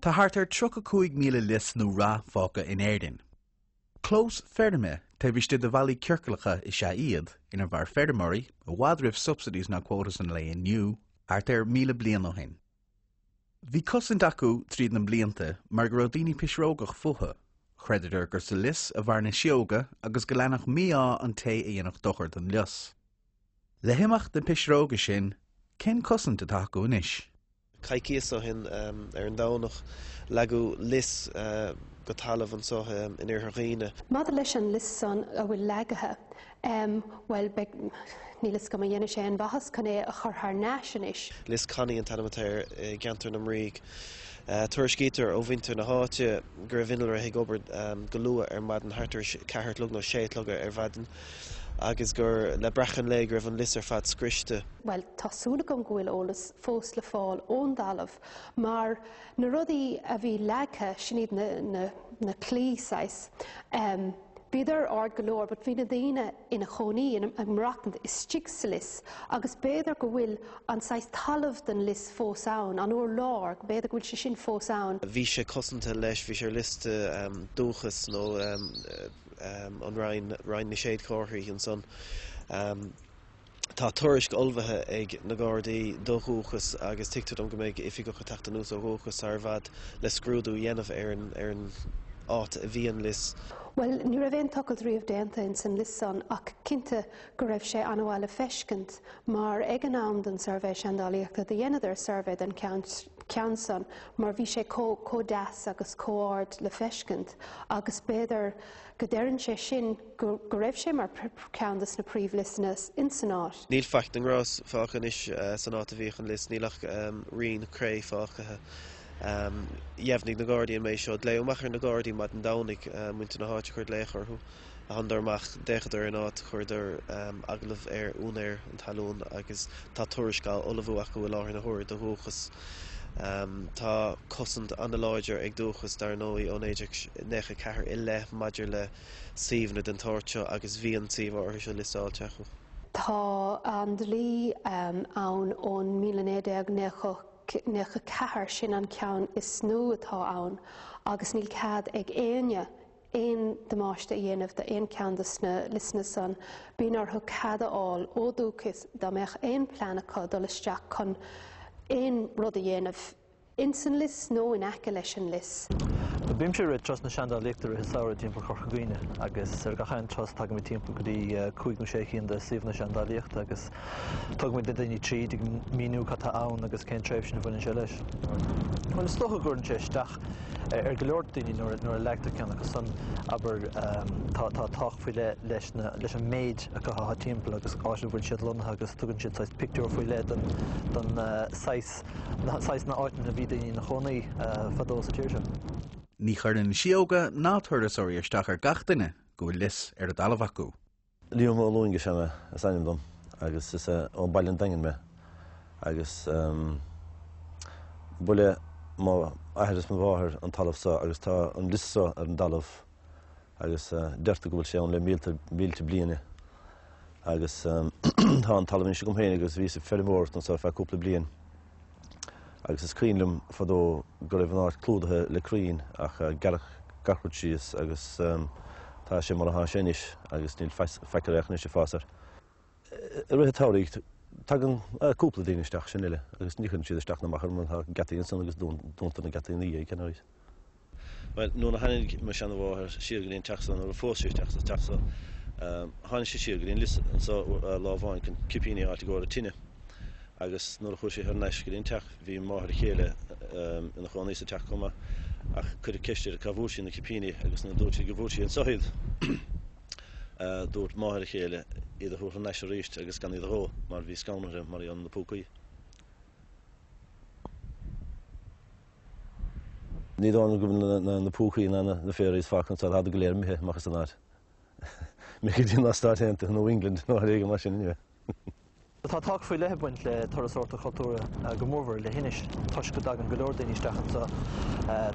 Tá thart ar 35,000 lios nó rath fágtha in Éirinn. Clóis feirme taobh istigh de bhallaí ciorclacha is ea iad, inar mhair feirmeoirí, i bhfad roimh subsidies ná quotas an lae inniu, thart ar 1,000 bliain ó shin. Bhí cosaint acu tríd na blianta mar go raibh daoine pisreogach fúthu. Chreideadar gur sa lios a mhair na sióga agus go leanfadh mí-ádh an té a dhéanfadh dochar don lios. Le himeacht na pisreoga sin, cén cosaint atá acu anois? Coicíos ó shin, ar an Domhnach, leagadh lios go talamh anseo in Iarthar Dhuibhne. Maidir leis an lios san a bhfuil leagaithe, bhuel, beidh, níl fhios agam an dhéanfaidh sé aon mhaitheas chun é a chur thar n-ais anois. Lios Connie an t-ainm atá air i gceantar na mBrígh. Tuairiscítear ó mhuintir na háite go raibh innealra ag obair go luath ar maidin, thart ar a ceathair a chlog nó sé a chlog ar maidin, agus gur le breacadh an lae go raibh an lios ar fad scriosta. Bhuel, tá súil agam go bhfuil eolas fós le fáil ón dtalamh mar na rudaí a bhí leagtha, sin iad na, na, na claí saghas, em, bhíodar ard go leor but bhí na daoine ina chónaí, ina, ag maireachtaint istigh sa lios agus b'fhéidir go bhfuil an saghas talamh den lios fós ann, an urlár, b'fhéidir go bhfuil sé sin fós ann. Bhí sé cosanta leis, bhí sé ar liosta em Dúchas nó em em an Roinn, Roinn na Séadchomharthaí ansan. Em. Tá tuairisc ullmhaithe ag na Gardaí do Dhúchas agus tuigtear dom go mbeidh oifigeach ag teacht anuas ó Dhúchas sar i bhfad le scrúdú a dhéanamh ar an ar an áit a bhí an lios. Bhuel, ní raibh aon tochailt riamh déanta ins an lios san ach cinnte go raibh sé an-mhaith le feiscint mar ag an am den suirbhé seandálaíochta do dheineadar suirbhé den cheann ceann san mar bhí sé chomh chomh deas agus chomh ard le feiscint agus b'fhéidir go ndeireann sé sin go go raibh sé mar cheann de na príomhliosanna ins an áit. Níl faic den ngrás fágtha anois san áit a bhíodh an lios, níl ach rian cré fágtha. Dheimhnigh na Gardaí an méid seo. Glaodh amach ar na Gardaí maidin Domhnaigh, muintir na háite a chuir glaoch orthu. Thánadar amach, d'fhéachadar ar an áit, chuireadar agallamh ar úinéir an talún agus tá tuairisc á ullmhú acu i láthair na huaire do Dhúchas. Tá cosaint an-láidir ag Dúchas, dar ndóigh, ó 1994 i leith maidir le suíomhanna den tsórt seo agus bhí an suíomh áirithe seo liostáilte acu. Tá an dlí ann ón 1994, sin an ceann is nua atá ann, agus níl cead ag éinne aon damáiste a dhéanamh d'aon cheann de sna liosanna san, bíonn orthu cead a fháil ó Dúchas dá mbeadh aon plean acu dul isteach chun aon rud a dhéanamh ins an lios nó in aice leis an lios. Bímse ag rith turas na seandálaíochta i rith an samhraidh timpeall Chorca Dhuibhne agus ar gach aon turas tagaimid timpeall go dtí cúig nó sé cinn de suíomhanna seandálaíochta agus tugaimid na daoine tríd ag míniú cad tá ann agus cén tréimhse a bhaineann sé leis. Bhuel is dócha go gcuireann sé isteach ar go leor daoine nuair a leagtar ceann acu san, abair, tá tábhacht faoi leith leis na, leis an méid acu atá timpeall agus áit a bhfuil siad lonnaithe agus tugann siad saghas pictiúr faoi leith don, don saghas, na, saghas na áiteanna a bhí daoine ina chónaí fadó sa tír seo. Ní chuireann síóga ná turasóirí isteach ar gach duine go bhfuil lios ar a dtalamh acu. Liam Ó Loingsigh is ainm dom agus is ó Baile an Daingin mé agus ba le mo athair is mo mháthair an talamh seo agus tá an lios seo ar an dtalamh agus deirtear go bhfuil sé ann le mílte mílte bliana agus tá an talamh anois agam féin agus bhíos ag feirmeoireacht anseo ar feadh cúpla bliain agus is cuimhin liom fadó go raibh an áit clúdaithe le crainn ach gearradh gach rud síos agus tá sé mar atá sé anois agus níl faic ar anois ag fás air. I rith an tsamhraidh tagann cúpla daoine isteach sin uile agus ní chuireann siad isteach ná amach orm mar tá geataí ansan agus dúntar na geataí ina dhiaidh, ceann arís. Bhuel, nuair a tháinig mo sheana-mháthair siar go dtí an teach so, nuair a phós sí isteach sa teach so, tháinig sí siar go dtí an lios anso lá amháin chun cipíní a fháilt i gcomhair an tine agus nuair a chuaigh sí thar n-ais go dtí an teach bhí máthair a chéile ina chónaí sa teach chomh maith ach cuireadh ceist uirthi cá bhfuair sí na cipíní agus nuair a dúirt sí go bhfuair sí anso iad dúirt máthair a chéile iad a thabhairt thar n-ais arís agus gan iad a dhó mar bhí scanradh uirthi mar gheall ar na púcaí. Ní dóigh liom go bhfuil na púcaí ná na fairies fágtha anseo, táid go léir imithe amach as an áit. Imithe go dtí na Stáit Aontaithe nó England nó áit éigin mar sin anyway. Tá tábhacht faoi leith ag baint le turasóireacht chultúrtha, go mórmhór i Leithinis, toisc go dtagann go leor daoine isteach anseo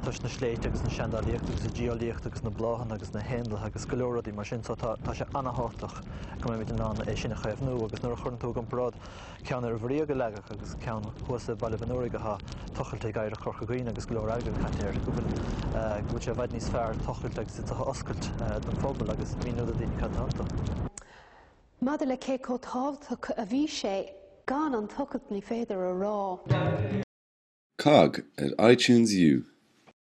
toisc na sléibhte agus na seandálaíochta agus an geolaíocht agus na bláthanna agus na héanlaithe agus go leor rudaí mar sin so tá sé an-thábhachtach go mbeimid in ann é sin a chaomhnú agus nuair a chuireann tú i gcomparáid ceann ar an Bhuiríog a leagadh agus ceann thuas i Baile Mhic an Fhuaraigh atá tochailte ag Oidhreacht Chorca Dhuibhne agus go leor airgid caite air, go bhfuil go bhfuil sé i bhfad níos fearr tochailt agus iad a oscailt don phobal agus míniú do daoine cad atá iontu. Maidir le cé chomh tábhachtach a bhí sé, gan an tochailt ní féidir a rá. Cogg ar iTunes U.